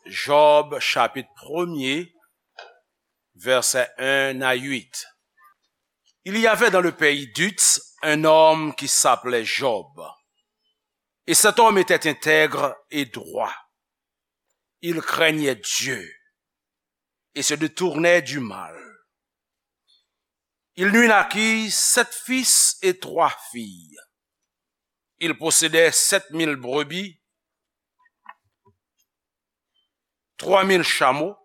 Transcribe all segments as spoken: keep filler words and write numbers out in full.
Job, chapitre premier, versets un à huit. Il y avait dans le pays d'Uts un homme qui s'appelait Job. Et cet homme était intègre et droit. Il craignait Dieu et se détournait du mal. Il lui naquit sept fils et trois filles. Il possédait sept mille brebis, trois mille chameaux,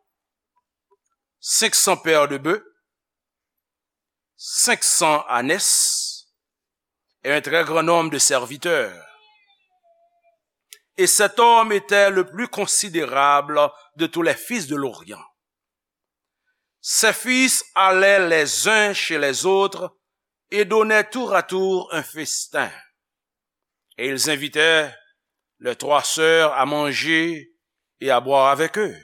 cinq cents paires de bœufs, cinq cents ânesses et un très grand nombre de serviteurs. Et cet homme était le plus considérable de tous les fils de l'Orient. Ses fils allaient les uns chez les autres et donnaient tour à tour un festin. Et ils invitaient leurs trois sœurs à manger et à boire avec eux.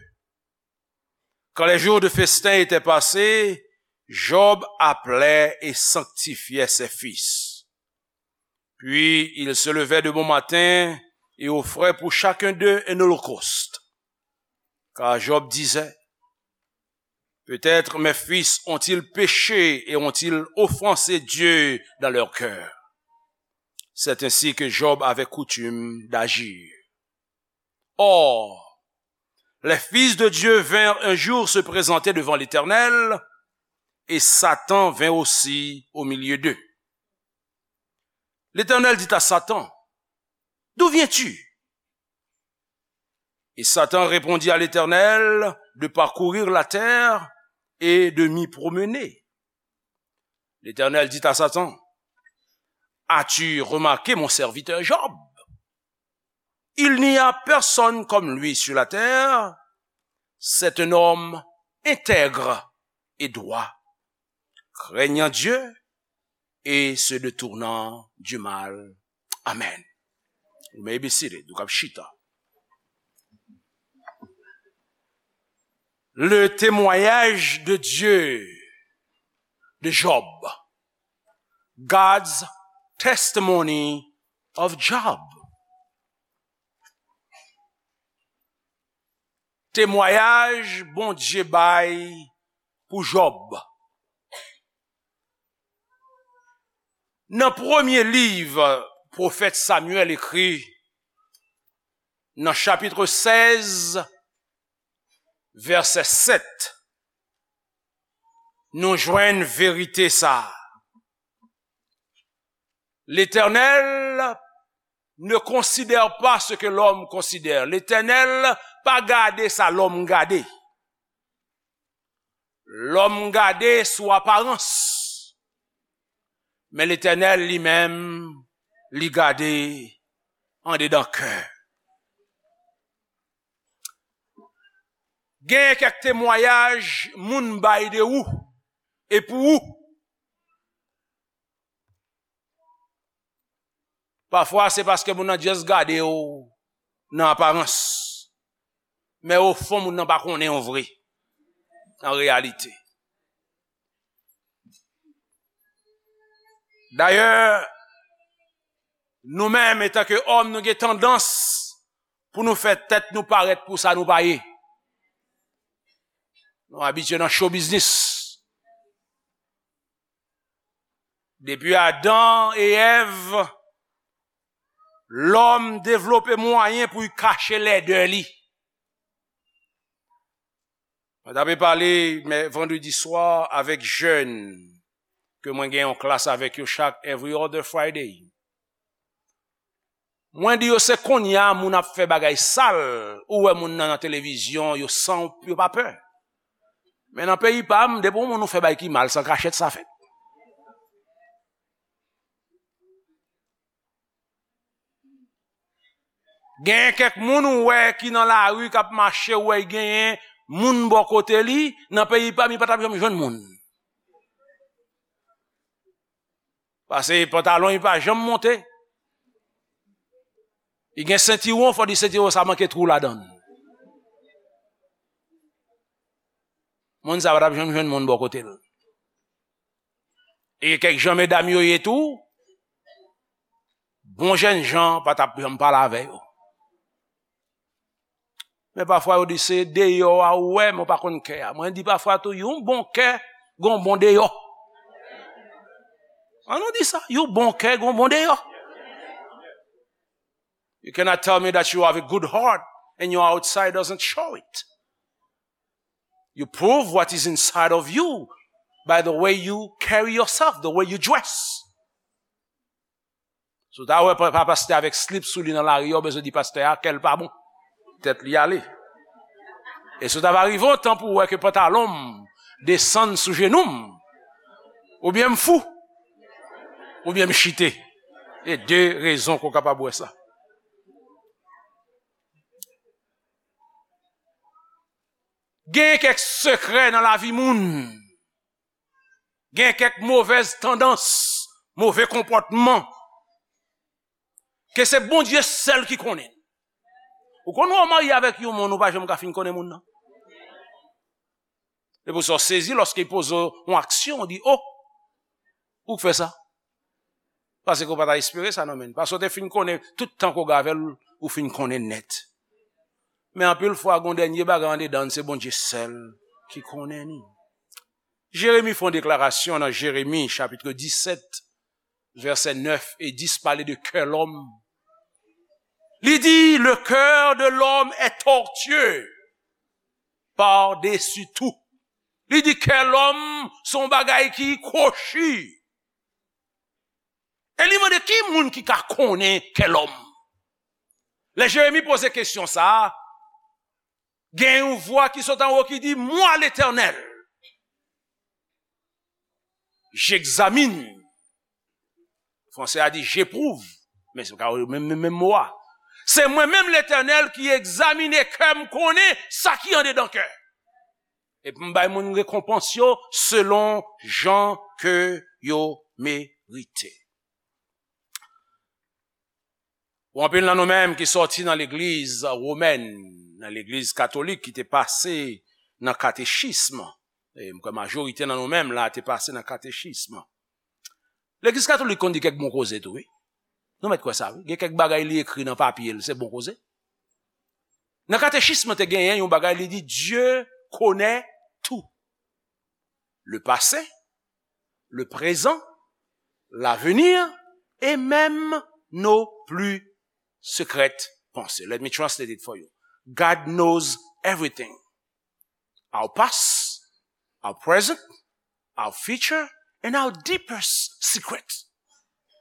Quand les jours de festin étaient passés, Job appelait et sanctifiait ses fils. Puis il se levait de bon matin et offrait pour chacun d'eux un holocauste. Car Job disait, peut-être mes fils ont-ils péché et ont-ils offensé Dieu dans leur cœur. C'est ainsi que Job avait coutume d'agir. Or, les fils de Dieu vinrent un jour se présenter devant l'Éternel, et Satan vint aussi au milieu d'eux. L'Éternel dit à Satan, d'où viens-tu? Et Satan répondit à l'Éternel de parcourir la terre et de m'y promener. L'Éternel dit à Satan, as-tu remarqué mon serviteur Job? Il n'y a personne comme lui sur la terre. C'est un homme intègre et droit, craignant Dieu et se détournant du mal. Amen. You may be seated. Ou kab chita. Le témoignage de Dieu de Job. God's testimony of Job. Temwayaj Bondye bay pou Jòb. Nan premye liv pwofèt Samyèl ekri, nan chapit sèz, vèsè sèt, nou jwenn verite sa a. L'Éternel ne considère pas ce que l'homme considère. Letènèl pa gade sa lòm gade. Lòm gade sou aparans. Men Letènèl li menm, li gade andedan kè. Gen kèk temwayaj moun bay de ou e pou ou. Pafwa, se paske moun nan just gade w nan aparans. Men ofon, moun nan pa konnen w vre, an reyalite. Dayè, nou menm, etanke òm, nou gen tandans pou nou fè tèt nou parèt pou sa nou pa ye. Nou abitye nan show business. Depi Adan e Èv, lòm devlope mwayen pou l kache lèdè li. Mwen t ape pale, mè, vandredi swa avèk jèn ke mwen gen yon klas avèk yo chak every other Friday. Mwen di yo, se kounye a moun ap fè bagay sal, ou wè moun nan, nan televizyon, yo san, yo pa pè. Men nan peyi pa m, depi yon moun ou fè bagay ki mal, san kachèt sa fèt. Gen kèk moun ou wè ki nan lari k ap mache, ou wè l genyen moun bò kote li, nan peyi pa m, li pa t ap janm jwenn moun. Paske pantalon li pa janm monte. Li gen sentiwon, fò di sentiwon sa manke twou ladan l. Moun sa pa t ap janm jwenn moun bò kote l. E kèk jan medam yo ye tou, bon jènjan pa t ap janm pale avè yo. Men pafwa yo di se deyò a ou wè, men w pa konn kè a. Mwen di pafwa tou, yon bon kè, gon bon deyò. An nou di sa, yon bon kè, gon bon deyò. You cannot tell me that you have a good heart and your outside doesn't show it. You prove what is inside of you by the way you carry yourself, the way you dress. Si w ta wè pa, pa pastè avèk slip sou li nan lari a, w bezwen di pastè a kè l pa bon. Tèt li ale. E si w ta va rive yon tan pou w wè ke pantalon m desann sou jenou m, oubyen m fou, oubyen m chite. E de rezon ke w kapab wè sa. Gen kèk sekrè nan lavi moun. Gen kèk movèz tandans, move konpòtman, ke se Bondye sèl ki konnen. Ou konn wè w marye avèk yon moun, ou pa janm ka fin konnen moun nan. Se pou sa w sezi lòske l poze w yon aksyon, w di, "O, ou k fè sa?" Paske w pa ta espere sa nan men l. Paske w te fin konnen, tout tan ke w gen avè l, ou fin konnen nèt. Men anpil fwa, gen yon dènye bagay andedan n, se Bondye sèl ki konnen li. Jeremi fè yon deklarasyon nan Jeremi, chapit disèt, vèsè nèf e dis, pale de kè lòm. Li di, "Le cœur de l'homme est tortueux par-dessus tout." Li di, kè lòm se yon bagay ki kwochi. E li mande, ki moun ki ka konnen kè lòm? Lè Jeremi poze kesyon sa a, gen yon vwa ki sot anwo ki di, "Moi, l'Éternel, j'examine." Fransè a di, "J'éprouve." Men se ka menm, menm, menm mo a. "Se mwen menm, Letènèl, ki egzamine kè, m konnen sa ki andedan kè. Epi m bay moun rekonpans yo selon jan ke yo merite." Pou anpil nan nou menm ki sòti nan legliz womèn, nan legliz katolik ki te pase nan katechism, e m kwè majorite nan nou menm la te pase nan katechism. Legliz katolik konn di kèk bon koze tou, wi. Nou mèt kwè sa, wi. Gen kèk bagay li ekri nan papye l, se bon koze. Nan katechism te genyen yon bagay, li di, Dieu connaît tout. Le passé, le présent, l'avenir et même nos plus secrètes pensées. Let me translate it for you. God knows everything. Our past, our present, our future, and our deepest secret.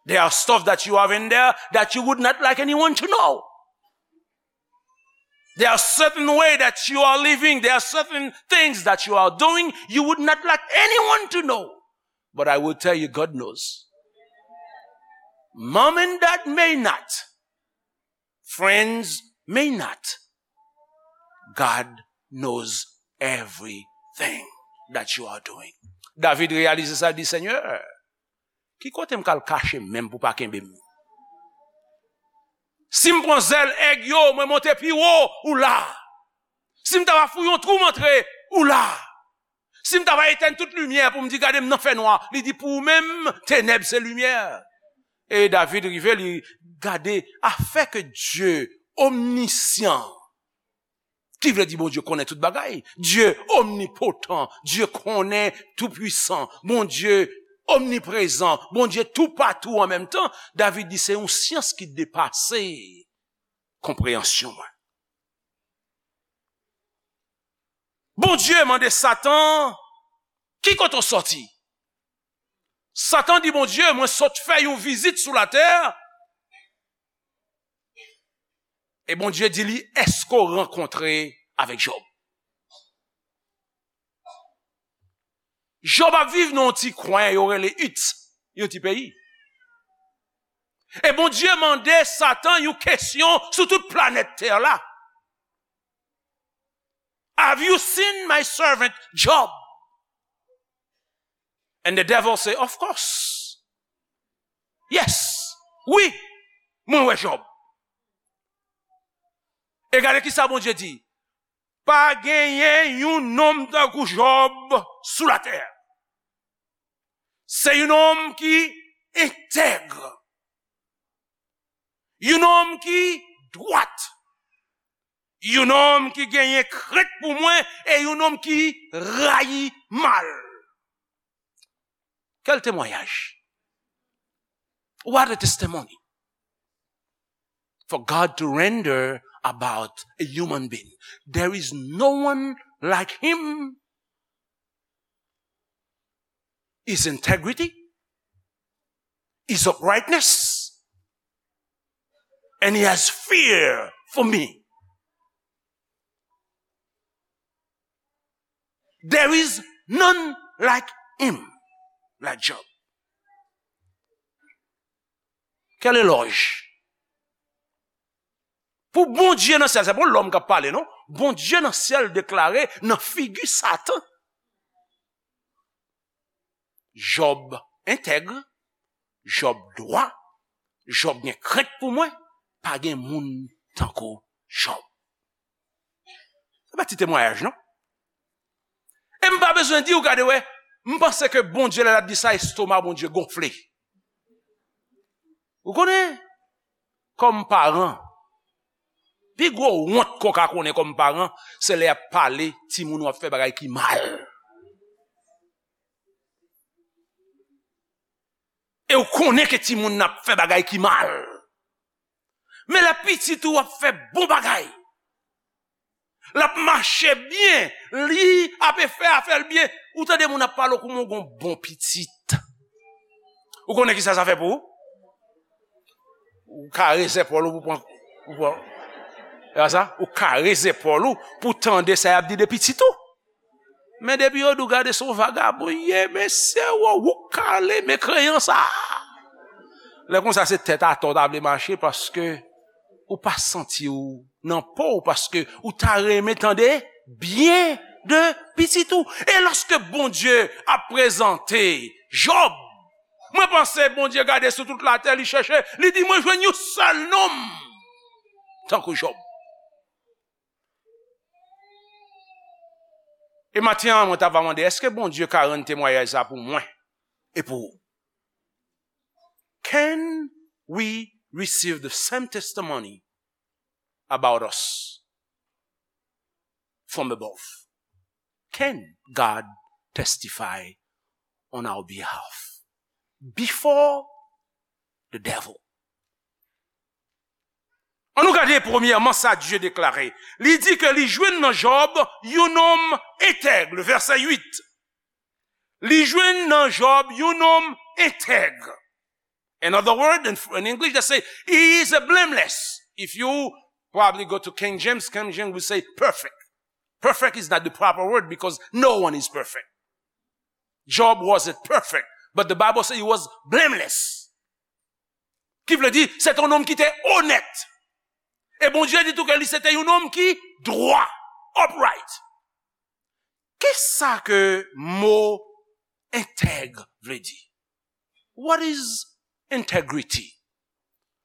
There are stuff that you have in there that you would not like anyone to know. There are certain way that you are living. There are certain things that you are doing you would not like anyone to know. But I will tell you, God knows. Mom and dad may not. Friends may not. God knows everything that you are doing. David reyalize sa, di, Senyè, ki kote m ka al kache men m pou pa kenbe m? Si m pran zèl èg yo, mwen monte pi wo, ou la. Si m ta va fouye yon twou, m antre, ou la. Si m ta va etèn tout limyè pou m di, gade m nan fènwa, li di, pou ou menm, tenèb se limyè. E David rive, li gade, afè ke Dye omnisyan, ki vle di Bondye konnen tout bagay. Dye omnipotan, Dye konnen toupwisan, Bondye omniprezan, Bondye toupatou an menm tan. David di, se yon syans ki depase konpreyansyon mwen. Bondye mande Satan, ki kote w sòti? Satan di Bondye, mwen sot fè yon vizit sou latè. E Bondye di li, èske w rankontre avèk Jòb? Jòb ap viv nan yon ti kwen yo rele It, yon ti peyi. E Bondye mande Satan yon kesyon sou tout planèt tè la. Have you seen my servant Job? And the devil say, of course. Yes. Wi. Mwen wè Jòb. E gade ki sa Bondye di. Pa genyen yon nonm tankou Jòb sou latè. Se yon nonm ki entèg. Yon nonm ki dwat. Yon nonm ki genyen krent pou mwen e yon nonm ki rayi mal. Quel témoignage? What a testimony for God to render about a human being. There is no one like him. His integrity, his uprightness, and he has fear for me. There is none like him, like Job. Quel éloge! Pou Bondye nan syèl, se pa lòm k ap pale, non. Bondye nan syèl deklare nan figi Satan, Jòb entèg, Jòb dwa, Jòb gen krent pou mwen, pa gen moun tankou Jòb. Se pa ti temwayaj, non. E m pa bezwen di w, gade, wè, m panse ke Bondye, lè l ap di sa, estoma Bondye gonfle. Ou konnen, kòm paran, pi gwo wont ke w ka konnen kòm paran, se lè y ap pale timoun w ap fè bagay ki mal. E w konnen ke timoun nan ap fè bagay ki mal. Men lè pitit ou ap fè bon bagay, l ap mache byen, li ap fè afè l byen, ou tande moun ap pale w kòm yon bon pitit. Ou konnen ki sa sa fè pou ou? Ou kare zepòl ou pou pran, pou pran. E pa sa? Ou kare zepòl ou pou tande sa y ap di de pitit ou. Men depi yo di w gade se yon vagabon ye, mesye, ou, ou kale, men kreyan sa. Lè konsa se tèt atò w ta vle mache paske ou pa santi w nan po w, paske ou ta renmen tande byen de pitit ou. E lòske Bondye ap prezante Jòb, mwen panse Bondye gade sou tout latè, li chèche, li di, "Mwen jwenn yon sèl nonm tankou Jòb." E maten an, mwen ta va mande, èske Bondye ka rann temwayaj sa pou mwen e pou ou? Can we receive the same testimony about us from above? Can God testify on our behalf before the devil? Ann nou gade premyèman sa Dye deklare. Li di ke li jwenn nan Jòb yon nonm entèg, le verset huit. Li jwenn nan Jòb yon nonm entèg. In other words, in, in English, they say, "He is a blameless." If you probably go to King James, King James will say perfect. Perfect is not the proper word because no one is perfect. Job wasn't perfect, but the Bible says he was blameless. Ki vle di, se te yon nonm ki te onèt. E Bondye di tou ke li se te yon nonm ki dwa, upright. Kisa ke mo entèg vle di? What is integrity?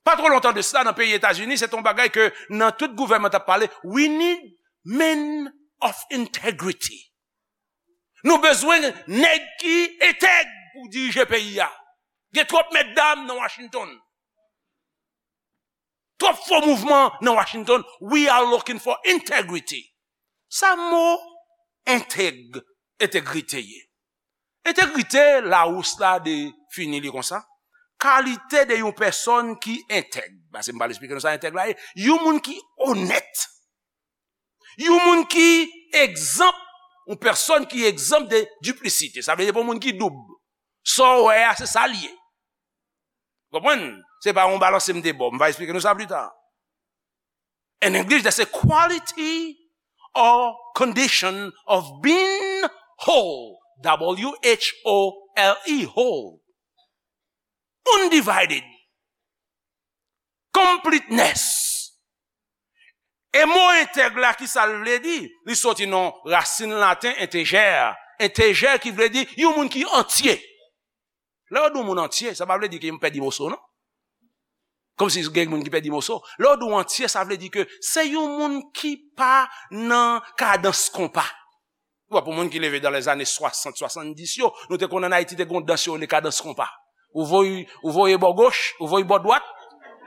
Pa twò lontan de sa, nan peyi Etazini, se te yon bagay ke nan tout gouvènman t ap pale, "We need men of integrity." Nou bezwen nèg ki entèg pou dirije peyi a. Gen twòp mètdam nan Washington. Twòp fo mouvman nan Washington. We are looking for integrity. Sa mo entèg, entegrite ye? Entegrite, Lawous la defini li konsa. Kalite de yon pèsòn ki entèg. Paske m pral esplike nou sa entèg la ye. Yon moun ki onèt. Yon moun ki egzanp, yon pèsòn ki egzanp de diplisite. Sa vle di pou moun ki doub. Sa w wè a, se sa l ye. Konprann? Se pa yon balanse m te ba w. M va esplike nou sa pli ta. In English, that's a quality or condition of being whole. W H O L E, whole. Undivided. Completeness. E mo entèg la, ki sa l vle di? Li soti nan rasin laten entejè. Entejè ki vle di yon moun ki antye. Lè yo di yon moun antye, sa pa vle di ke yon pèdi moso, non. Kòmsi gen moun ki pèdi moso. Lè yo di yon antye, sa vle di ke se yon moun ki pa nan kadans konpa. Ou wè, pou moun ki leve dans les années soixante, soixante-dix yo, nou te konn ann Ayiti te gon dans yo rele kadans konpa. Ou voye, ou voye bò goch, ou voye bò dwat.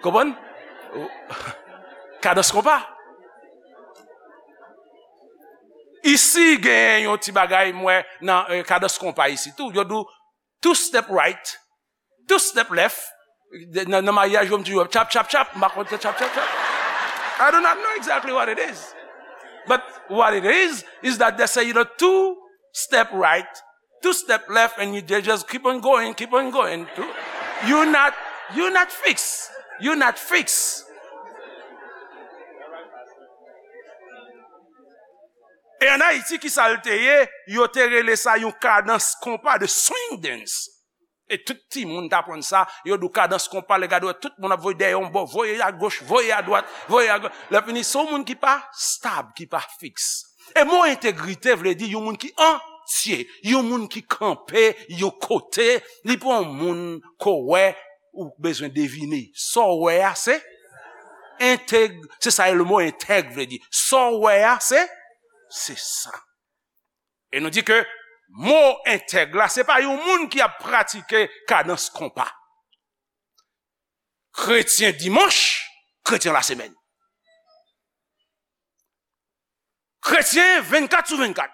Konprann? Ou- Kadans konpa. Isi genyen yon ti bagay m wè nan eh, kadans konpa isi tou. Yo di w two step right, two step left. Nan, nan maryaj yo m toujou chap chap chap, m pa konn se chap chap chap. I do not know exactly what it is. But what it is is that they say you know two step right, two step left and you they just keep on going, keep on going. You're not you're not fixed. You're not fixed. E an Ayiti, ki sa l te ye? Yo te rele sa yon kadans konpa de swing dance. E tout timoun t aprann sa, yo di w kadans konpa, lè gade w, tout moun ap voye dèyè yon bò, voye agoch, voye adwat, voye agoch. Lè fini, se yon moun ki pa stab, ki pa fiks. E mo entegrite vle di yon moun ki antye, yon moun ki kanpe yon kote, li pa yon moun ko wè ou bezwen devine. Sa w wè a, se entèg, se sa le mo entèg vle di. Sa w wè a, se, se sa. E nou di ke mo entèg la, se pa yon moun ki ap pratike kadans konpa. Kretyen dimanch, kretyen lasemèn. Kretyen vennkat sou vennkat.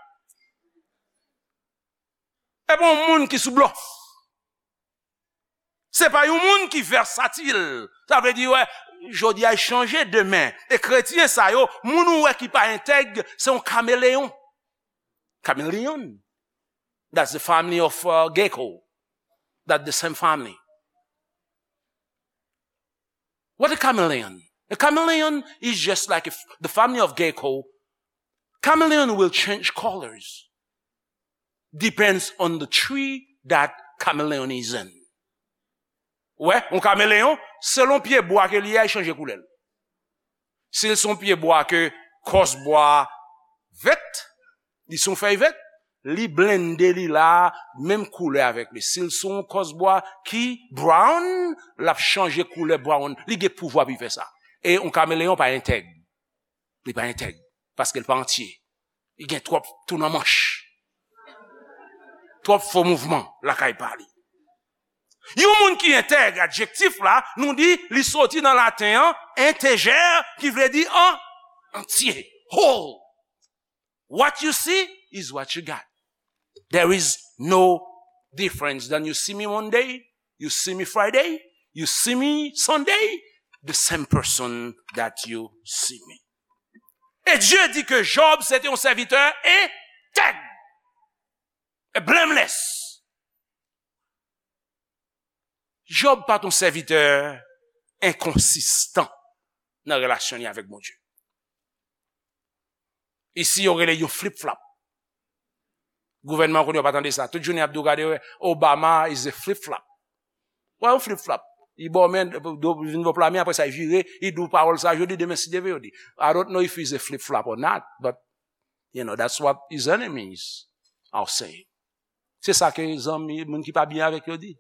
E pa yon moun ki sou blòf. Se pa yon moun ki vèsatil. Sa vle di, wè, jodi a chanje demen. E kretyen sa yo, moun ou wè ki pa entèg, se yon kameleyon. Kameleyon. That's the family of uh, gecko. That's the same family. What a chameleon? A chameleon is just like if the family of gecko. Chameleon will change colors. Depends on the tree that chameleon is in. Wè, yon kameleyon, selon pye bwa ke li ye, li chanje koulè l. Si l se yon pye bwa ke kòs bwa vèt, li se yon fèy vèt, li blende li la, menm koulè avèk li. Si l se yon kòs bwa ki brown, l ap chanje koulè brown. Li gen pouvwa pou l fè sa. E yon kameleyon pa entèg. Li pa entèg. Paske l pa antye. Li gen twòp tou nan manch. Twòp fo mouvman lakay pa li. Yon moun ki entèg, adjektif la, nou di li soti nan laten an, integer, ki vle di an, antye, whole. What you see is what you got. There is no difference. Then you see me Monday, you see me Friday, you see me Sunday, the same person that you see me. E Dye di ke Jòb se te yon sèvitè entèg, e blameless. Jòb pa t yon sèvitè enkonsistan nan relasyon li avèk Bondye. Isi, yo rele yo flip-flop. Gouvènman kounye a pa tande sa. Tout jounen y ap di w gade, Obama is a flip-flop. Wè yon flip-flop. Li ba w men, do vin ba w pla men, apre sa, li vire, li di w pawòl sa, jodi, demen, si Dye vle, yo di. I don't know if he's a flip-flop or not, but, you know, that's what his enemies are saying. Se sa ke zanmi, moun ki pa byen avèk yo di.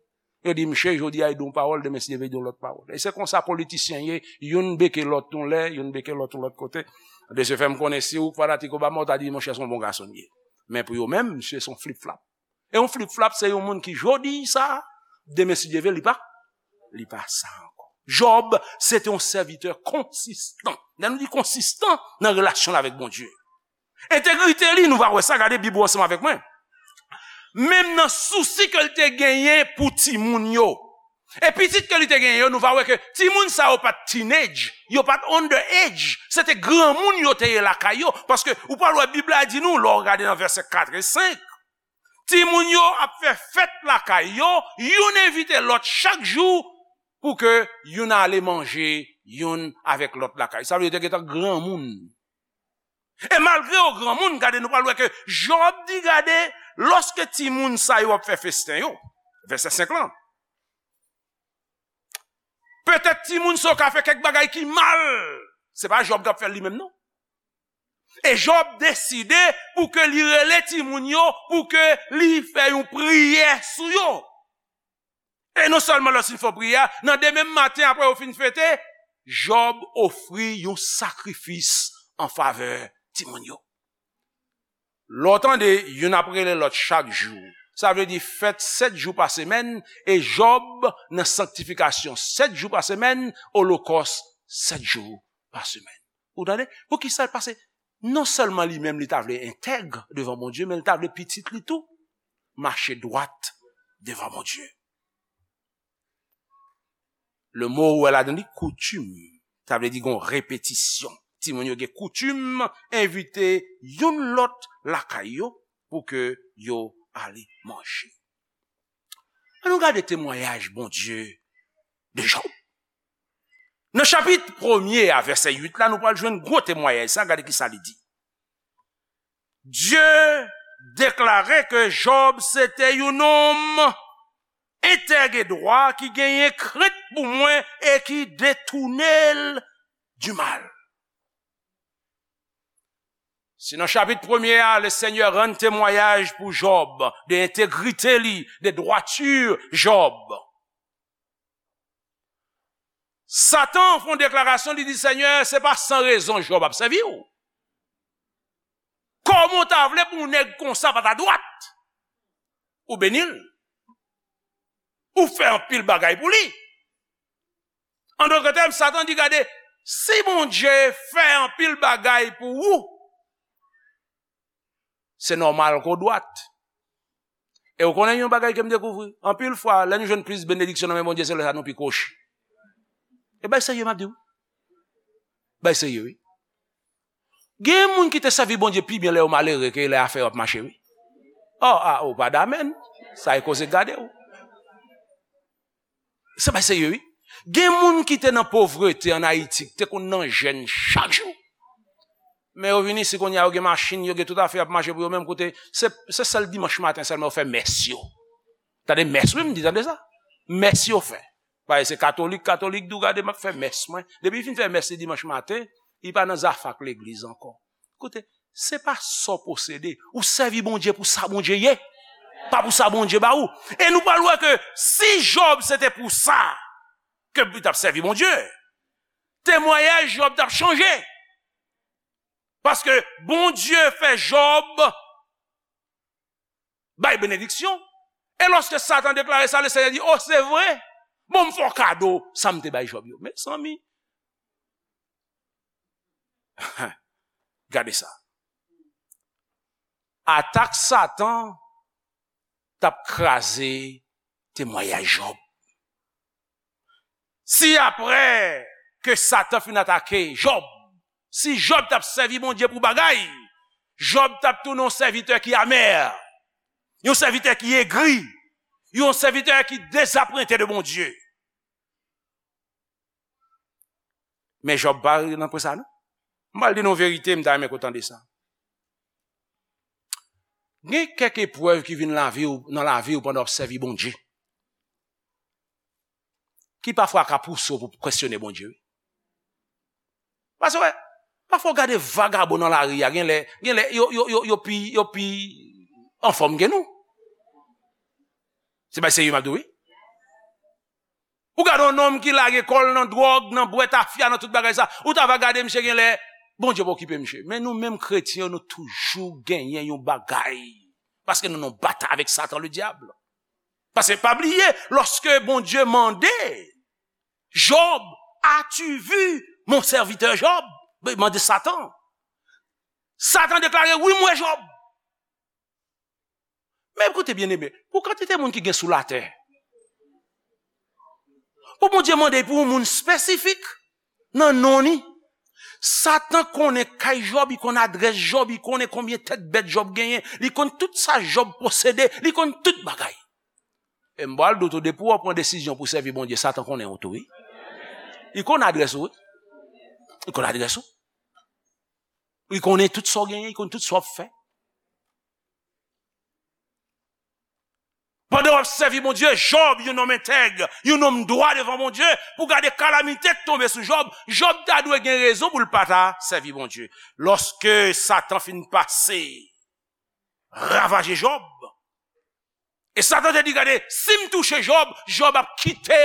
Yo di, "Msye, jodi a, li di yon pawòl, demen, si Dye vle, li di yon lòt pawòl." E se konsa politisyen ye, youn beke lòt yon lè, youn beke lòt yon lòt kote. De se fè, m konnen si ou fanatik Obama, ou ta di, "Monchè, se yon bon gason li ye." Men pou yo menm, msye, se yon flip-flop. E yon flip-flop, se yon moun ki jodi sa, demen, si Dye vle, li pa, li pa sa ankò. Jòb, se te yon sèvitè konsistan. Lè nou di konsistan, nan relasyon l avèk Bondye. Entegrite li, nou va wè sa, gade Bib ou ansanm avèk mwen. Menm nan sousi ke l te genyen pou timoun yo. E pitit ke li te genyen yo, nou va wè ke timoun sa yo pa t teenage, yo pa t under age. Se te granmoun yo te ye lakay yo. Paske ou pral wè Bib la di nou, lè w gade nan vèsè kat e senk, timoun yo ap fè fèt lakay yo, youn envite lòt chak jou pou ke youn ale manje youn avèk lòt lakay. Sa vle di yo te gentan granmoun. E malgre yo granmoun, gade, nou pral wè ke Jòb di, gade, lòske timoun sa yo ap fè festen yo, vèsè senk lan, petèt timoun sa yo ka fè kèk bagay ki mal. Se pa Jòb k ap fè l li menm, non. E Jòb deside pou ke li rele timoun yo, pou ke li fè yon priyè sou yo. E non sèlman lòske l fè priyè a, nan demen maten apre yo fin fete, Jòb ofri yon sakrifis an favè timoun yo. Lè w tande youn ap rele lòt chak jou, sa vle di fèt sèt jou pa semèn, e Jòb nan sanktifikasyon sèt jou pa semèn, olokòs sèt jou pa semèn. Ou tande? Poukisa l pase Non sèlman li menm li ta vle entèg devan Bondye, men li ta vle pitit li tou mache dwat devan Bondye. Le mo ou wè ladan li koutim, sa vle di gon repetisyon. Timoun yo gen koutim envite youn lòt lakay yo pou ke yo ale manje. Ann nou gade temwayaj Bondye de Jòb. Nan chapit premye a, vèsè uit la, nou pral jwenn gwo temwayaj sa, gade ki sa li di. Dye deklare ke Jòb se te yon nonm entèg e dwa ki genyen krent pou mwen e ki detounen l du mal. Si nan chapit premye a, le Senyè rann temwayaj pou Jòb de entegrite li, de dwati Jòb, Satan fè yon deklarasyon, li di, Senyè, se pa san rezon Jòb ap sèvi w. Kòman w ta vle pou yon nèg konsa pa ta dwat? Ou beni l. Ou fè anpil bagay pou li. An dòt tèm, Satan di, gade, si Bondye fè anpil bagay pou ou, se nòmal ke w dwat. E w konnen yon bagay ke m dekouvri, anpil fwa, lè nou jwenn plis benediksyon nan men Bondye, se lè sa nou pi kwochi. E bay serye m ap di w. Bay serye, wi. Gen moun ki te sèvi Bondye pi byen lè yo malere ke lè afè yo ap mache, wi. Oh, ah, ou pa damèn. Sa e koze gade w. Se pa serye, wi. Gen moun ki te nan povrete ann Ayiti, ki te konn nan jèn chak jou. Men yo vin isi kounye a, yo gen machin, yo gen tout afè y ap mache pou yo menm kote. Se, se sèl dimanch maten sèlman yo fè mès yo. Tande mès, wi, m di, tande sa. Mès yo fè. Paske se katolik, katolik di w gade m ap fè mès mwen. Depi li fin fè mès li dimanch maten, li pa nan zafè ak legliz ankò. Koute, se pa sa w posede. Ou sèvi Bondye pou sa Bondye ye, pa pou sa Bondye ba ou. E nou pral wè ke si Jòb se te pou sa ke li t ap sèvi Bondye, temwayaj Jòb t ap chanje. Paske Bondye fè Jòb bay benediksyon. E lòske Satan deklare sa, Lesenyè di, o, se vre? Bon, m fè w kado sa m te bay Jòb yo. Mezanmi, gade sa. Atak Satan t ap kraze temwayaj Jòb. Si apre ke Satan fin atake Jòb, si Jòb t ap sèvi Bondye pou bagay, Jòb t ap tounen yon sèvitè ki amè, yon sèvitè ki egri, yon sèvitè ki dezapwente de Bondye. Men Jòb pa rive nan pwen sa, non. M pral di nou verite, m ta renmen ke w tande sa. Gen kèk eprèv ki vin lavi w, nan lavi w pandan w ap sèvi Bondye, ki pafwa ka pouse w pou kesyone Bondye, wi. Paske, wè, pafwa w gade vagabon nan lari a, gen lè, gen lè, yo, yo, yo, yo pi, yo pi anfòm ke nou. Se bay serye m ap di w, wi. Ou gade yon nonm ki lage kò l nan dwòg, nan bwè tafya, nan tout bagay sa. Ou ta va gade misye gen lè, Bondye pa okipe misye. Men nou menm kretyen, nou toujou genyen yon bagay. Paske nou nan batay avèk Satan, le dyab. Paske pa bliye, lòske Bondye mande Jòb, as-tu vu mon serviteur Job? Mande Satan. Satan deklare, wi, m wè Jòb. Men koute, byeneme, pou kantite moun ki gen sou latè, pou Bondye mande pou yon moun espesifik nan non li, Satan konnen kay Jòb, li konn adrès Jòb, li konnen konbyen tèt bèt Jòb genyen, li konn tout sa Jòb posede, li konn tout bagay. E m pral di w tou, depi w pran desizyon pou sèvi Bondye, Satan konnen w tou, wi. Li konn adrès ou, wi. Li konn adrès ou. Li konnen tout sa w genyen, li konn tout sa w ap fè. Pandan w ap sèvi Bondye, Jòb, yon nonm entèg, yon nonm dwa devan Bondye, pou gade kalamite k tonbe sou Jòb, Jòb ta dwe gen rezon pou l pa ta sèvi Bondye. Lòske Satan fin pase, ravaje Jòb, e Satan te di, gade, si m touche Jòb, Jòb ap kite,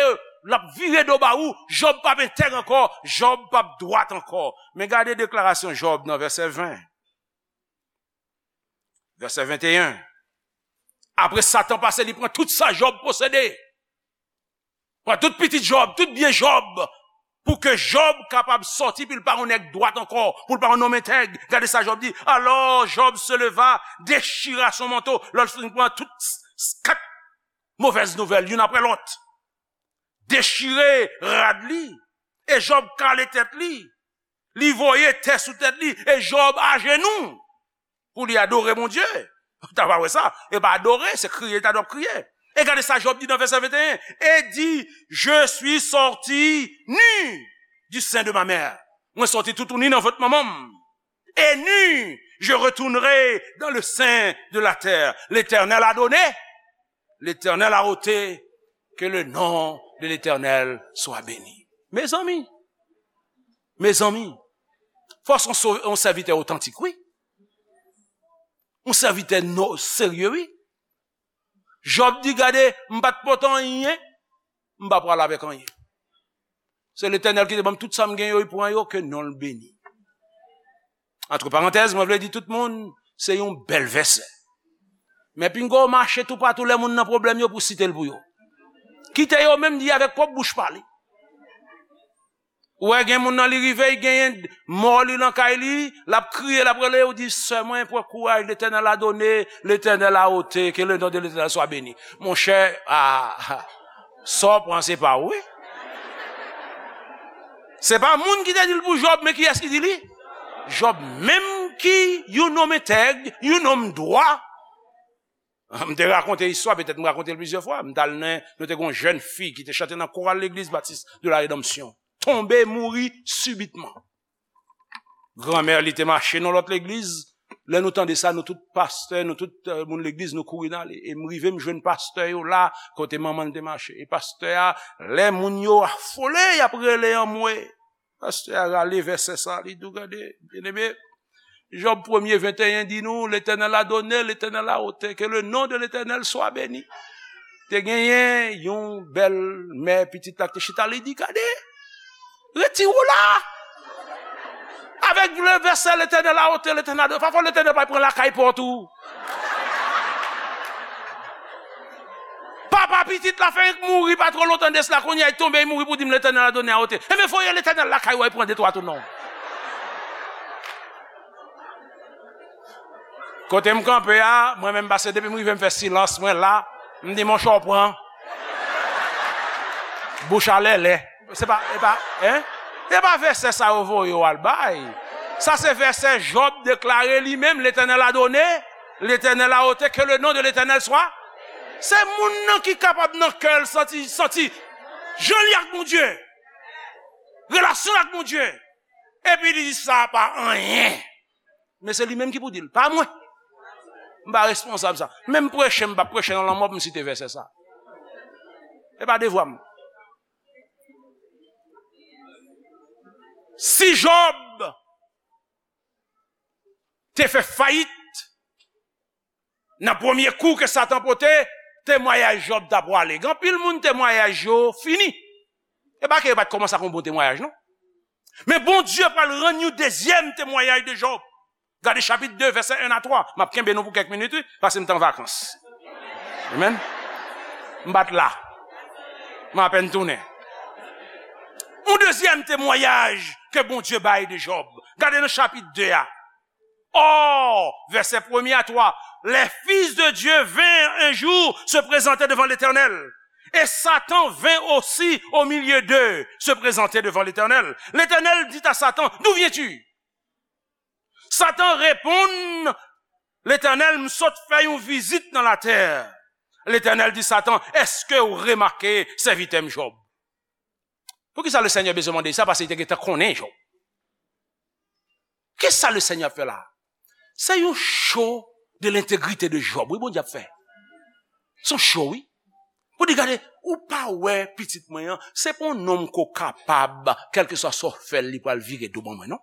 l ap vire do ba ou, Jòb p ap entèg ankò, Jòb p ap dwat ankò. Men gade deklarasyon Jòb nan vèsè ven. Vèsè venteyen. Apre Satan pase, li pran tout sa Jòb posede. Pran tout pitit Jòb, tout byen Jòb. Pou ke Jòb kapab sòti, pou l pa yon nèg dwat ankò, pou l pa yon nonm entèg. Gade sa Jòb di. Alors Job se leva, déchira son manteau. Lè l fin pran tout s-, s-, kat movèz nouvèl, youn apre lòt. Dechire rad li, e Jòb kale tèt li. Li voye tè sou tèt li, e Jòb ajenou pou li adore Bondye. Ou ta pa wè sa. E pa adore, se kriye, ta dwe kriye. E gade sa Jòb di nan vèsè venteyen. Et dit, je suis sorti nu du sein de ma mère. Mwen sòti toutouni nan vant manman m. Et nu, je retournerai dans le sein de la terre. L'Éternel a donné, l'Éternel a ôté, que le nom de l'Éternel soit béni. Mezanmi, mezanmi, fò se yon so-, yon sèvitè otantik, wi. Yon sèvitè no-, serye, wi. Jòb di, gade, m pa t pote anyen, m pa pral avèk anyen. Se Letènèl ki te ban m tout sa m gen yo, li pran yo, ke non l beni. Antre parantèz, mwen vle di tout moun, se yon bèl vèsè. Men pinga w mache toupatou lè moun nan pwoblèm yo pou site l pou yo. Kite yo menm di avèk pwòp bouch pa li. Ou wè gen moun nan li rive, li genyen mò li nan kay li, l ap kriye, l ap rele, ou di, sè mwen, pran kouraj, Letènèl a done, Letènèl a ote, ke le non de Letènèl swa beni. Monchè, a, sa w pran se pa w, wi. Se pa moun ki te di l pou Jòb, men kiyès ki di li? Jòb menm ki yon nonm entèg, yon nonm dwa. M te rakonte istwa, petèt m rakonte l plizyè fwa. M t al nan, nou te gen yon jèn fi ki te chante nan koral Legliz Batis de la Redanmsyon. Tonbe, mouri sibitman. Granmè li te mache nan lòt legliz. Lè nou tande sa, nou tout pastè, nou tout, eh, moun legliz, nou kouri n ale. E m rive, m jwenn pastè yo la, kote manman l te mache. E pastè a, lè moun yo afole, y ap rele anmwe. Pastè a rale vèsè sa, li di w, gade, byeneme, Jòb premye venteyen di nou, Letènèl a done, Letènèl a ote, ke le non de Letènèl swa beni. Te genyen yon bèl mè pitit la ki te chita, li di, gade, retire w la. Avèk le vèsè Letènèl a ote, Letènèl a done. Pafwa Letènèl pa pran lakay pòt ou. Papa pitit la fenk mouri pa twò lontan de sila, kounye a li tonbe, li mouri pou di m Letènèl a done a ote. Enben voye Letènèl lakay ou al pran de twa tou non. Kote m kanpe a, mwen menm pase depi m rive m fè silans mwen la, m di monchè w pran. Bouch a lèlè. Se pa, e pa, en? E pa vèsè sa yo voye w al bay. Sa se vèsè Jòb deklare li menm, Letènèl a done, Letènèl a ote, ke le non de Letènèl swa. Se moun nan ki kapab nan kè l santi, santi jan li ak Bondye. Relasyon l ak Bondye. Epi li di sa pa anyen. Men se li menm ki pou di l, pa mwen. M pa responsab sa. Menm preche, m p ap preche nan lanmò pou m site vèsè sa. E pa devwa m. Si Jòb te fè fayit nan premye kou ke Satan pote, temwayaj Jòb ta pwale. Gen anpil moun temwayaj yo fini. E pa ke yo pa t kòmanse ak yon bon temwayaj, non. Men Bondye pral rann yon dezyèm temwayaj de Jòb. Gade chapit de, vèsè en a twa. M ap kenbe nou pou kèk minit, wi, paske m t an vakans. Amen. M pa t la. M apèn tounen. Yon dezyèm temwayaj ke Bondye bay de Jòb. Gade nan chapit de a. Or, verset premier à trois, les fils de Dieu vinrent un jour se présenter devant l'Éternel. Et Satan vint aussi au milieu d'eux se présenter devant l'Éternel. L'Éternel dit à Satan, d'où viens-tu? Satan reponn Letènèl, m sot fè yon vizit nan latè. Letènèl di Satan, èske w remake sèvitè m Jòb? Poukisa Lesenyè bezwen mande sa? Paske li te gentan konnen Jòb. Kisa Lesenyè ap fè la? Se yon show de l'intégrité de Job, wi, Bondye ap fè. Se yon show, wi. Pou di, gade, ou pa wè pitit mwen an, se pa yon nonm ko kapab, kèlkeswa sa w fè l, li pral vire do ban mwen, non.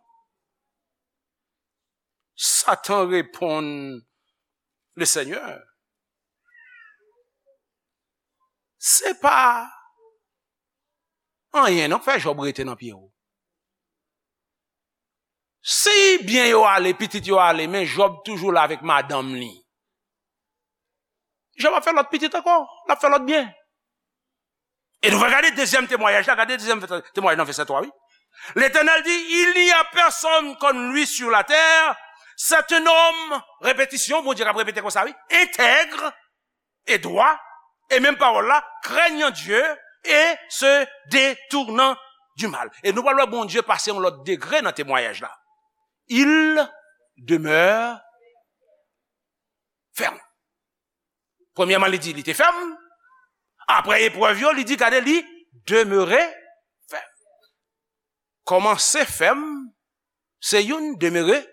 Satan reponn Lesenyè, se pa anyen non k fè Jòb rete nan pye w. Si byen yo ale, pitit yo ale, men Jòb toujou la avèk madanm li. Jòb ap fè lòt pitit ankò, l ap fè lòt byen. E nou va gade dezyèm temwayaj la, gade dezyèm temwayaj nan vèsè twa, wi. L'Éternel dit, il n'y a personne comme lui sur la terre. C'est un homme, repetisyon, Bondye k ap repete konsa, wi, intègre et droit, e menm pawòl la, craignant Dieu et se détournant du mal. E nou pral wè Bondye pase yon lòt degre nan temwayaj la. Il demeure ferme. Premyèman, li di li te fèm. Apre eprèv yo, li di, gade, li demere fèm. Kòmanse fèm, se youn, demere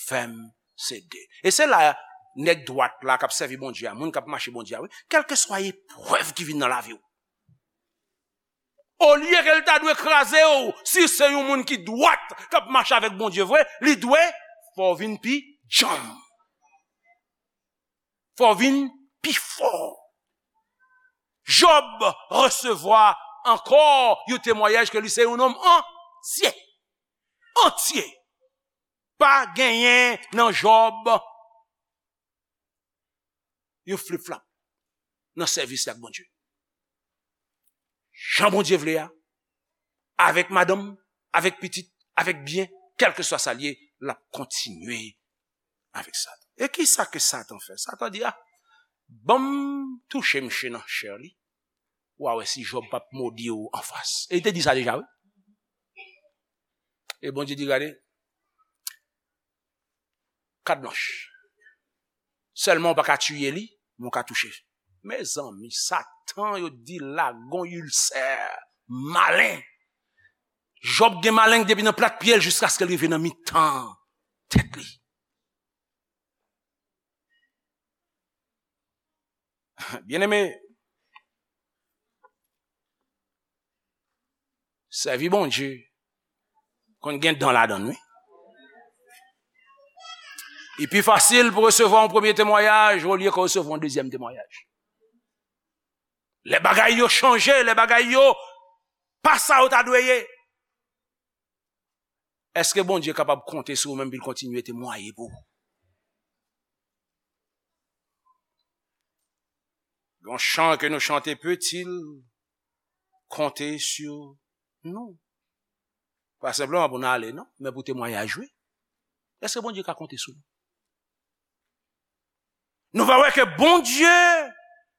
fèm, se de. E se la nèg dwat la k ap sèvi Bondye a, moun k ap mache Bondye a, wi, kèlkeswa eprèv ki vin nan lavi w. Olye ke l ta dwe kraze w, si se yon moun ki dwat k ap mache avèk Bondye vre, li dwe fè w vin pi djanm. Fò w vin pi fò. Jòb resevwa ankò yon temwayaj ke li se yon nonm antye. Antye. Pa genyen nan Jòb yon flip-flap nan sèvis li ak Bondye. Jan Bondye vle a, avèk madanm, avèk pitit, avèk byen, kèlkeswa sa l ye, l ap kontinye avèk Satan. E kisa ke Satan fè? Satan di, a, ban m touche msye nan chè li. W a wè si Jòb p ap modi w anfas. E li te di sa deja, wi. E Bondye di, gade, kat blanch. Sèlman w pa ka tiye li, men w ka touche. Mezanmi, Satan, yo di l la gon ilsè malen. Jòb gen maleng depi nan plat pye l jiskaske l rive nan mitan tèt li. Byeneme, sèvi Bondye konn gen dan ladan l, wi. Li pi fasil pou resevwa yon premye temwayaj olye ke w resevwa yon dezyèm temwayaj. Lè bagay yo chanje, lè bagay yo pa sa yo ta dwe ye, èske Bondye kapab konte sou ou menm pou l kontinye temwaye pou ou? Yon chan ke nou chante, peut-il compter sur nous? Pa senpleman pou n ale, non, men pou temwayaj, wi. Èske Bondye ka konte sou nou? Nou va wè ke Bondye,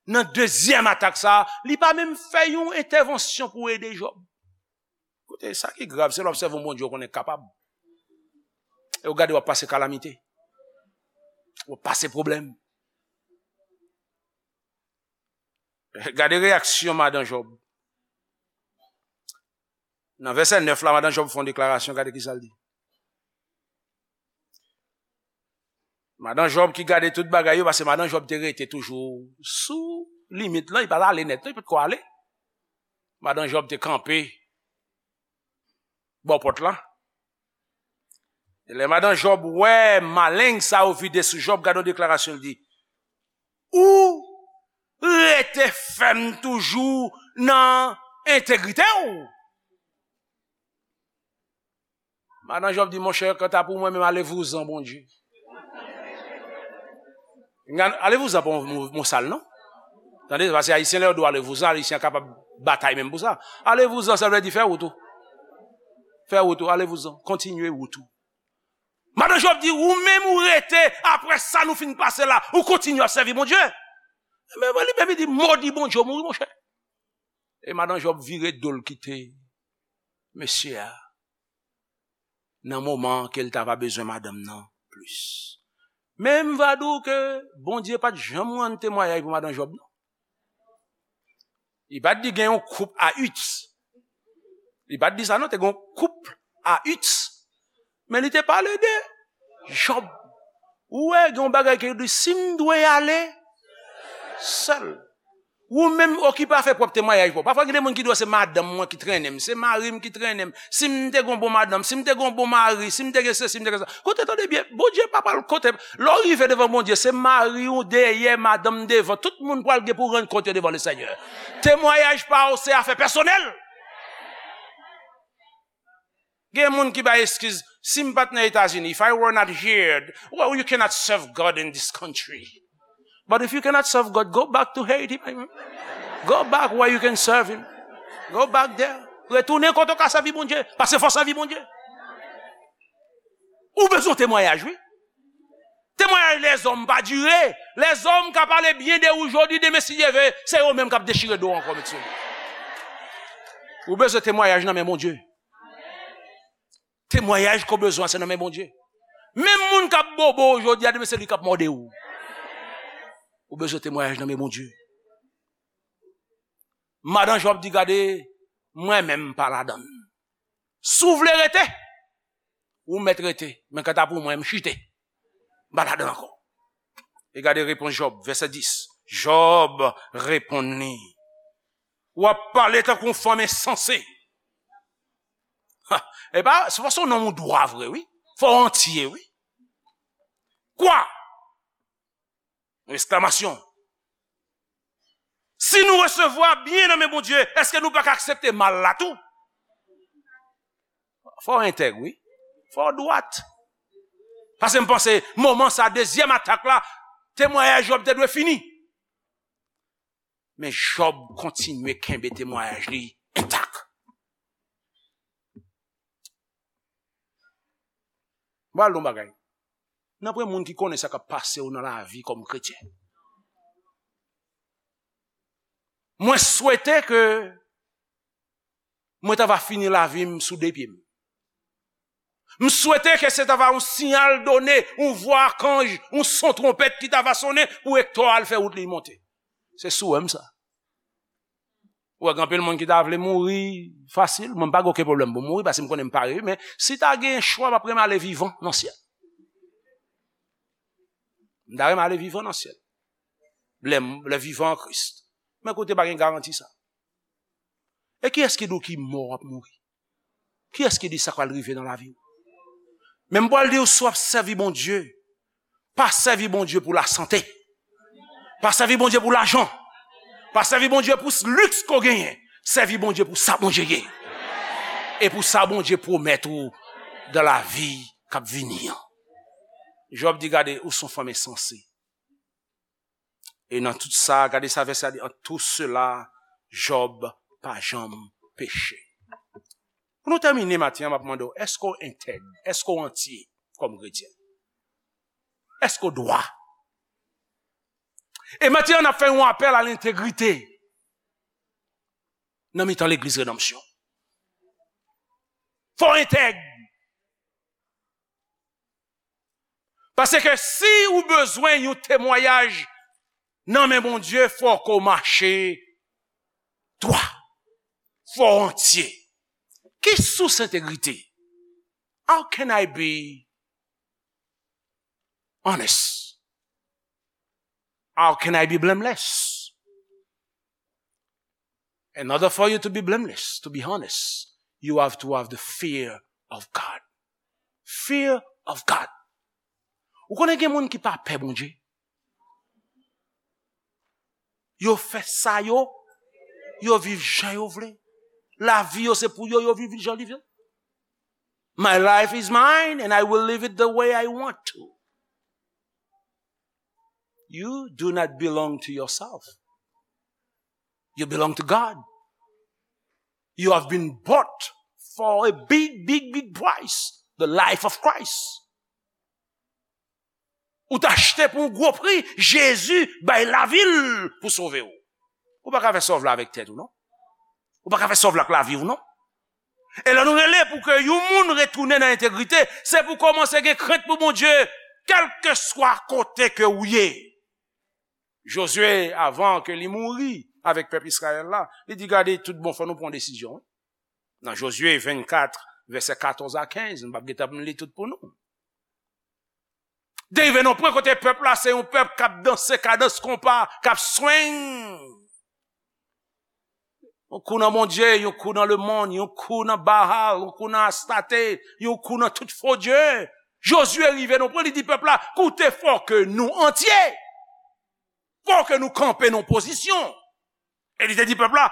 nan dezyèm atak sa a, li pa menm fè yon entèvansyon pou ede Jòb. Koute, sa ki grav, se lè w obsève yon Bondye w konnen k kapab. E w gade w ap pase kalamite. W ap pase pwoblèm. Gade reyaksyon madan Jòb. Nan vèsè nèf la, madan Jòb fè yon deklarasyon, gade kisa l di. Madan Jòb ki gade tout bagay yo, paske madan Jòb te rete toujou sou limit lan, li pa t ale nèt, non, li pa t ko ale. Madan Jòb te kanpe bò pòt la. E lè madan Jòb wè maleng sa yo vide sou Jòb, gade yon deklarasyon l di, ou rete fèm toujou nan entegrite w? Madan Jòb di, monchè, kanta pou mwen menm, ale vouzan, Bondye. Ale vouzan pa yon mo, mo sal, non? Tande, paske Ayisyen, lè yo di w ale vouzan, Ayisyen kapab batay menm pou sa. Ale vouzan, sa vle di fè wout ou. Fè wout ou, ale vouzan. Kontinye wout ou. Madan Jòb di, ou menm ou rete, apre sa nou fin pase la, ou kontinye ap sèvi Bondye. Men li menm li di, modi Bondye, ou mouri, monchè. E madan Jòb vire do l kite mesye a nan moman ke l ta va bezwen madanm nan plis. Men m va di w ke Bondye pa t janm rann temwayaj pou madan Jòb, non. Li pa t di gen yon koup a uit. Li pa t di sa, non, te gen yon koup a uit. Men li te pale de Jòb. Ou wè, gen yon bagay ke yo di, si m dwe ale sèl. Ou menm okipe afè pwòp temwayaj pa w. Pafwa, gen de moun ki di w, se madanm mwen ki trennen m, se mari m ki trennen m. Si m te gon bon madanm, si m te gon bon mari, si m te gen sesi, si m te gen sa. Koute, tande byen, Bondye pa pral kote. Lè w rive devan Bondye, se mari w dèyè, madanm devan. Tout moun pral gen pou rann kont yo devan Lesenyè. Temwayaj pa w, se afè pèsonèl. Gen moun ki bay eskiz, si m pa t nan Etazini, if I were not here, well, you cannot serve God in this country. But if you cannot serve God, go back to Haiti, my man. Go back where you can serve him. Go back there. Retounen kote w ka sèvi Bondye. Paske fò w sèvi Bondye. Ou bezwen temwayaj, wi. Temwayaj lèzòm pa dire. Lèzòm ka pale byen de ou jodi, demen si Dye vle, se yo menm k ap dechire do w ankò, met sou li. Ou bezwen temwayaj nan men Bondye. Temwayaj ke w bezwen, se nan men Bondye. Menm moun k ap bobo w jodi a, demen se li k ap mòde w. Ou bezwen temwayaj nan men Bondye. Madan Jòb di, "Gade, mwen menm m pa ladann. Si w vle rete, ou mèt rete. Men kanta pou mwen, m chite. M pa ladann ankò." E gade repons Jòb, vèsè dis. Jòb reponn li, "W ap pale tankou yon fanm ensanse." Ha, e pa, se paske w nonm ou dwa vre, wi. Fò w antye, wi. Kwa? Yon eksklamasyon. Si nou resevwa byen nan men Bondye, èske nou pa ka aksepte mal la tou? Fò w entèg, wi. Fò w dwat. Paske m panse, moman sa, dezyèm atak la, temwayaj Jòb te dwe fini. Men Jòb kontinye kenbe temwayaj li entak. M pral di w yon bagay. Nanpwen moun ki konnen sa k ap pase w nan lavi kòm kretyen. Mwen swete ke mwen ta va fini lavi m sou de pye m. M swete ke se ta va yon siyal done, yon vwa akanj, yon son twonpèt ki ta va sonnen pou Ektò al fè wout li monte. Se swè m sa. Ou wè, gen anpil moun ki ta vle mouri fasil. Mwen, m pa gen okenn pwoblèm pou mouri, paske m konnen m pare, wi, men si ta gen chwa, m ap renmen ale vivan nan syèl. M ta renmen ale vivan nan syèl. Lè m, lè vivan an Kris. Men kote pa gen garanti sa. E kiyès ki di w ki mò w ap mouri? Kiyès ki di sa k pral rive nan lavi w? Men m pral di w, si w ap sèvi Bondye, pa sèvi Bondye pou lasante. Pa sèvi Bondye pou lajan. Pa sèvi Bondye pou s-, liks ke w genyen. Sèvi Bondye pou sa Bondye ye. E pou sa Bondye pwomèt ou dan lavi k ap vini an. Jòb di, "Gade, ou se yon fanm ensanse." E nan tout sa, gade sa vèsè a di, "En tout cela, Jòb pa janm peche." Pou nou tèmine maten an, m ap mande w, èske w entèg? Èske w antye kòm kretyen? Èske w dwa? E maten an, n ap fè yon apèl a lentegrite nan mitan legliz Redanmsyon. Fò w entèg. Paske si ou bezwen yon temwayaj nan men Bondye, fò ke w mache dwa. Fò w antye. Ki sous entegrite? How can I be honest? How can I be blameless? In order for you to be blameless, to be honest, you have to have the fear of God. Fear of God. Ou konnen gen moun ki pa pè Bondye. Yo fè sa yo, yo viv jan yo vle. Lavi yo se pou yo, yo viv jan li vle. My life is mine and I will live it the way I want to. You do not belong to yourself. You belong to God. You have been bought for a big, big, big price. The life of Christ. Ou t achte pou yon gwo pri, Jezi bay lavi l pou sove w. Ou pa ka fè sa w vle avèk tèt ou, non. Ou pa ka fè sa w vle ak lavi w, non. E lè nou rele pou ke yon moun retounen nan entegrite, se pou kòmanse gen krent pou Bondye, kèlkeswa kote ke ou ye. Jozye, avan ke li mouri avèk pèp Izrayèl la, li di, "Gade, tout bon, fò nou pran desizyon, wi." Nan Jozye vennkat, vèsè katòz a kenz, m p ap gentan li tout pou nou. Te rive nan pwen kote pèp la, se yon pèp k ap danse kadans konpa, k ap swing. Yon kou nan Bondye, yon kou nan lemonn, yon kou nan Baal, yon kou nan Astarte, yon kou nan tout fo dye. Jozye rive nan pwen, li di pèp la, "Koute, fò ke nou antye. Fò ke nou kanpe nan pozisyon." E li te di pèp la,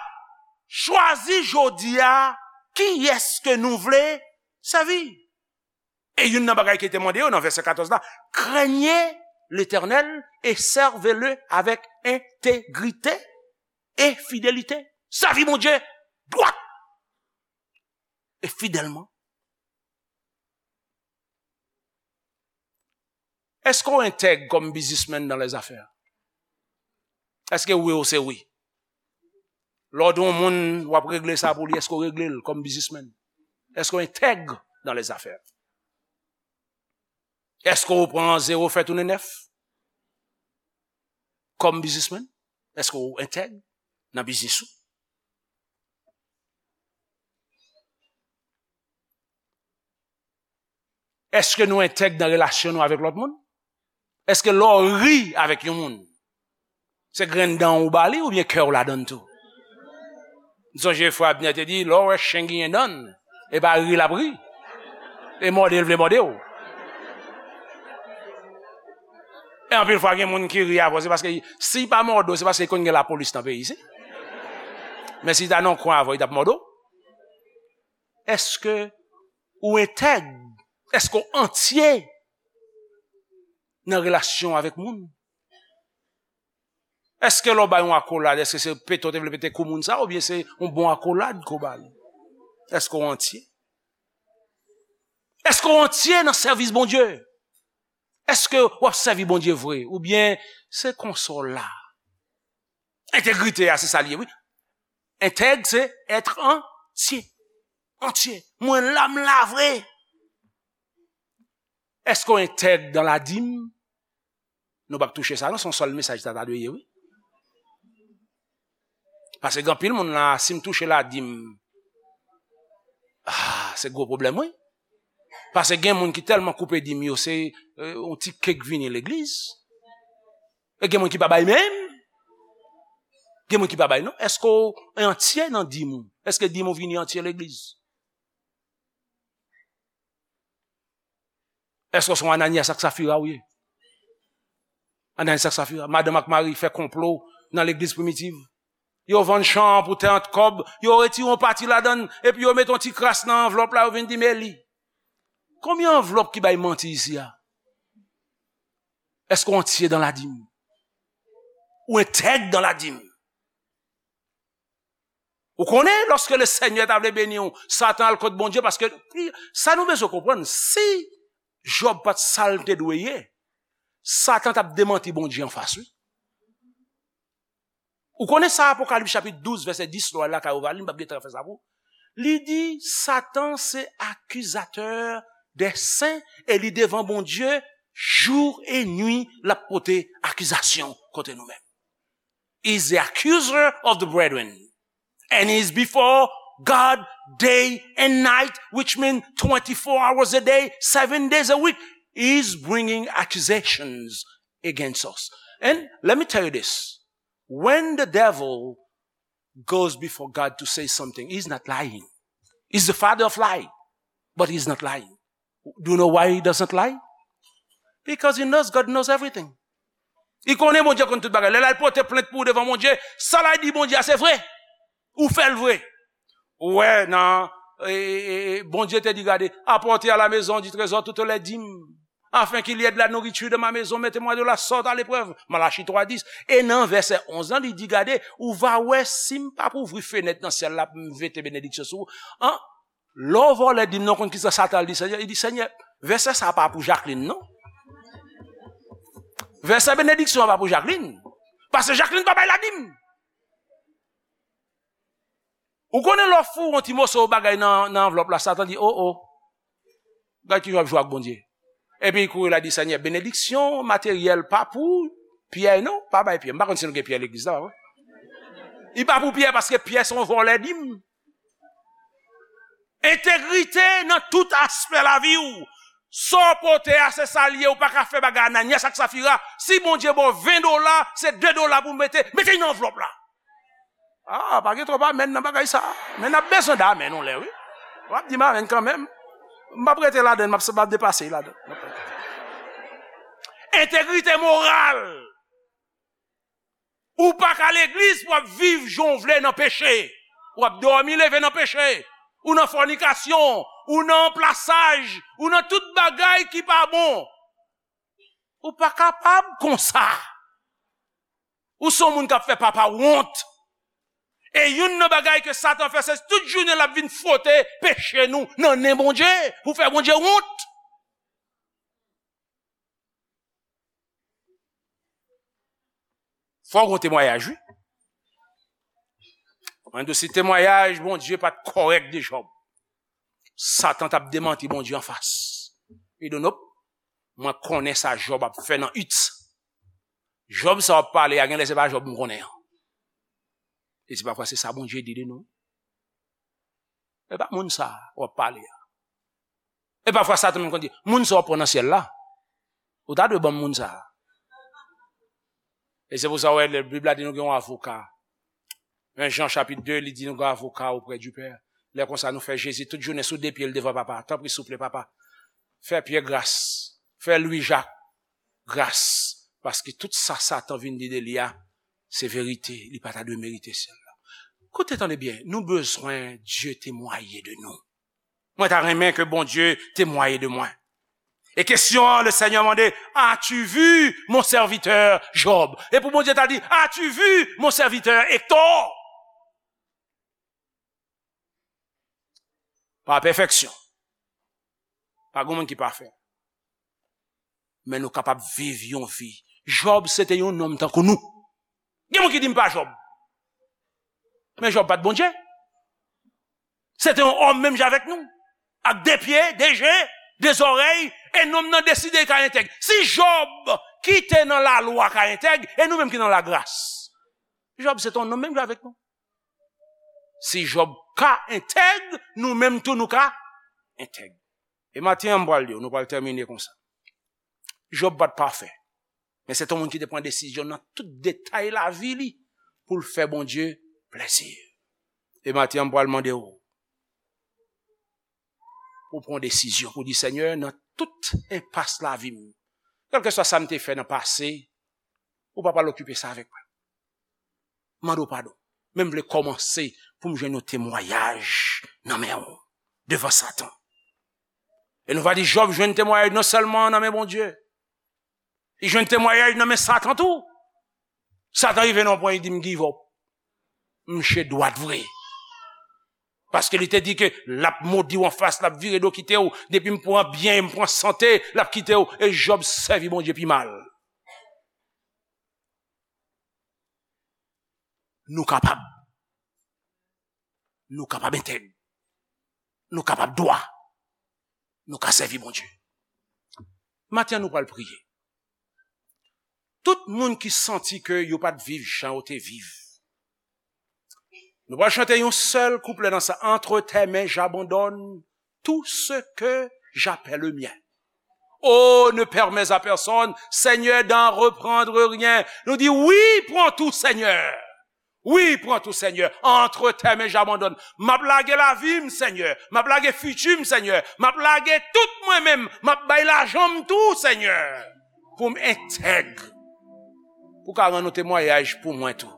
"Chwazi jodi a kiyès ke nou vle sèvi." E youn nan bagay ki te mande yo nan vèsè katòz la, "Craignez l'Éternel et servez-le avec intégrité et fidélité." Sèvi Bondye dwat e fidèlman. Èske w entèg kòm biznismenn dans les affaires? Èske wi w se wi? Lè w di yon moun w ap regle sa pou li, èske w regle l kòm biznismenn? Èske w entèg dans les affaires? Èske w pran zewo fè tounen nèf kòm biznismenn? Èske w entèg nan biznis ou? Èske nou entèg nan relasyon nou avèk lòt moun? Èske lè w ri avèk yon moun, se grenn dan w ou ba li oubyen kè w ladan l tou? M sonje frè Abner te di, lè w wè chen genyen dan l, e pa ri l ap ri, e mòde l vle mòde w. E anpil fwa gen moun ki ri avè w, se paske si l pa mòde w, se paske l konn gen lapolis nan peyi isi. Men si l ta nan kwen avè w, li t ap mòde w. Èske ou entèg? Èske w antye nan relasyon avèk moun? Èske lè w bay yon akolad, èske se pete w te vle pete kou moun sa, oubyen se yon bon akolad ke w ba li? Èske w antye? Èske w antye nan sèvis Bondye? Èske w ap sèvi Bondye vre? Oubyen se konsa w la? Entegrite a, se sa l ye, wi. Entèg, se être entier. Antye. Mwen la, m la vre. Èske w entèg dans la dîme? Nou p ap touche sa, non, se yon sèl mesaj sa ta dwe ye, wi. Paske gen anpil moun la, si m touche ladim, ah, se gwo pwoblèm, wi. Paske gen moun ki tèlman koupe dim yo, se, eh, yon ti kèk vini legliz. E gen moun ki pa bay menm. Gen moun ki pa bay, non. Èske w antye nan dim ou? Èske dim ou vini antye legliz? Èske w se yon Ananyas ak Safira ou ye? Ananyas ak Safira, madanm ak mari fè konplo nan legliz primitiv. Yo vann chan an pou trant kòb, yo retire yon pati ladan l, epi yo mete yon ti kras nan anvlòp la, yo vin di, "Men li." Konbyen anvlòp ki bay manti isi a? Èske w antye dans la dîme? Ou entèg dans la dîme? Ou konnen, lòske le Senyè ta vle beni w, Satan al kot Bondye, paske sa nou bezwen konprann, si Jòb pa t sa l te dwe ye, Satan t ap demanti Bondye anfas, wi. Ou konnen sa, Apokalips chapit douz, vèsè dis, lè w al lakay ou va li, m p ap gen tan fè sa pou ou. Li di, Satan se akizatè dè sen e li devan Bondye, jou e nwi, l ap pote akizasyon kontre nou menm. Is the accuser of the brethren. And is before God day and night, which means twenty-four hours a day, seven days a week. Is bringing accusations against us. And let me tell you this. When the devil goes before God to say something, he's not lying. He's the father of lie, but he's not lying. Do you know why he doesn't lie? Because he knows God knows everything. Li konnen Bondye konn tout bagay. Lè l al pote plent pou ou devan Bondye, sa l al di Bondye a se vre. Ou fè l vre. Ou wè nan, e, e, e, Bondye te di, gade, apportez à la maison du trésor toutes les dîmes, afin qu'il y ait de la nourriture dans ma maison, mettez-moi de la sorte à l'épreuve. Malachi twa dis. E nan vèsè onz lan, li di, gade, ou va wè si m p ap ouvri fenèt nan syèl la pou m vete benediksyon sou ou. An, Lè w vòlè dim nan, w konn kisa Satan al di Senyè? Li di, Senyè, vèsè sa a pa pou Jacqueline, non. Vèsè benediksyon an pa pou Jacqueline. Paske Jacqueline pa bay ladim. Ou konnen lè w foure yon ti moso bagay nan, nan anvlòp la, Satan di, o, o. Gad kijan w ap jwe ak Bondye. Epi li kouri la di, Senyè, benediksyon materyèl pa pou Pyè, non. Pa bay Pyè. M pa konn si nou gen Pyè legliz la, pa vre? Li pa pou Pyè paske Pyè se yon vòlè dim. Entegrite nan tout aspè lavi w. Sa w pote a, se sa l ye. Ou pa ka fè bagay Ananyas ak Safira. Si Bondye ba w ven dola, se de dola pou w mete. Mete l nan anvlòp la. Ah, pa gen twòp amèn nan bagay sa. Men n ap bezwen de amèn yon lè, wi. W ap di m amèn kanmenm. M p ap rete ladan l, m ap, m ap depase ladan l. Entegrite moral. Ou pa ka legliz pou w ap viv jan w vle nan peche. W ap dòmi leve nan peche. Ou nan fònikasyon. Ou nan anplasaj. Ou nan tout bagay ki pa bon. Ou pa kapab konsa. Ou se yon moun k ap fè papa w wont. E youn nan bagay ke Satan fè, se tout jounen l ap vin fwote peche nou nan nen Bondye, pou fè Bondye wont. Fò w gen temwayaj, wi. Mwen di w, si temwayaj Bondye pa t kòrèk de Jòb, Satan t ap demanti Bondye anfas. Li di w, nop, mwen konnen sa Jòb ap fè nan it. Jòb sa w ap pale a, genlè se pa Jòb m konnen an. E se pafwa se sa Bondye di de nou. E pa moun sa w ap pale a. E pafwa Satan menm konn di, moun sa w ap pran nan syèl la, ou ta dwe ban m moun sa. E se pou sa w wè, lè Bib la di nou gen yon avoka. Men Jan chapit de, li di nou gen avoka auprès du Père. Lè konsa, nou fè Jezi tout jounen sou de pye l devan Papa. Tanpri, souple, Papa, fè Pyè gras, fè Lwi Jak gras, paske tout sa Satan vin di de li a, se verite, li pa ta dwe merite syèl la. Koute, tande byen, nou bezwen Dye temwaye de nou. Mwen ta renmen ke Bondye temwaye de mwen. E kesyon an, le Senyè mande, as-tu vu mon serviteur Job? E pou Bondye ta di, as-tu vu mon serviteur Hector? Pa pèfèksyon. Pa gen moun ki pafè. Men nou kapab viv yon vi. Jòb se te yon nonm tankou nou. Gen moun ki di m pa Jòb. Men Jòb pa t Bondye. Se te yon òm menm jan avèk nou. Ak de pye, de je, de zòrèy, e nonm nan deside l ka entèg. Si Jòb ki te nan lalwa ka entèg, e nou menm ki nan lagras. Jòb se te yon nonm menm jan avèk nou. Si Jòb ka entèg, nou menm tou nou ka entèg. E maten an, m pral di w, nou pral tèmine konsa. Jòb pa t pafè, men se te yon moun ki te pran desizyon nan tout detay lavi li pou l fè Bondye plezi. E maten an, m pral mande w pou w pran desizyon, pou w di, Senyè, nan tout enpas lavi m, kèlkeswa sa m te fè nan pase, ou pa pral okipe sa avèk mwen. Mande w padon. Men m vle kòmanse pou m jwenn yon temwayaj nan men w devan Satan. E nou va di Jòb jwenn temwayaj non sèlman nan men Bondye, li jwenn temwayaj nan men Satan tou. Satan rive nan yon pwen, li di, "M give up. M che dwat vre." Paske li te di ke l ap modi w anfas, l ap vire do kite w. Depi m pran byen, m pran sante, l ap kite w. E Jòb sèvi Bondye pi mal. Nou kapab. Nou kapab entèg. Nou kapab dwa. Nou ka sèvi Bondye. Maten an, nou pral priye. Tout moun ki santi ke yo pa t viv jan yo te viv, nou pral chante yon sèl kouplè nan sa. Entre tes mains, j'abandonne tout ce que j'appelle mien. Oh, ne permets à personne, Seigneur, d'en reprendre rien. Nou di, wi, pran tou, Senyè. Wi, pran tou, Senyè. Entre tes mains, j'abandonne. M ap lage lavi m, Senyè. M ap lage fiti m, Senyè. M ap lage tout mwen menm. M ap bay lajan m tou, Senyè. Pou m entèg. Pou ka rann yon temwayaj pou mwen tou.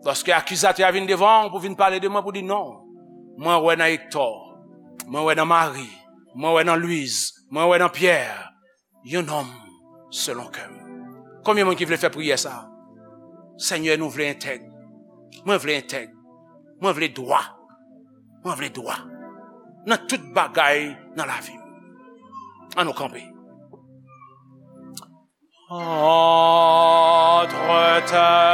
Lòske akizatè a vin devan w pou vin pale de mwen, pou di non. Mwen wè nan Hector. Mwen wè nan Marie. Mwen wè nan Louise. Mwen wè nan Pierre. Yon nonm selon kè m. Konbyen moun ki vle fè priyè sa? Senyè, nou vle entèg. Mwen vle entèg. Mwen vle dwa. Mwen vle dwa. Nan tout bagay nan lavi m. An nou kanpe. Entre tes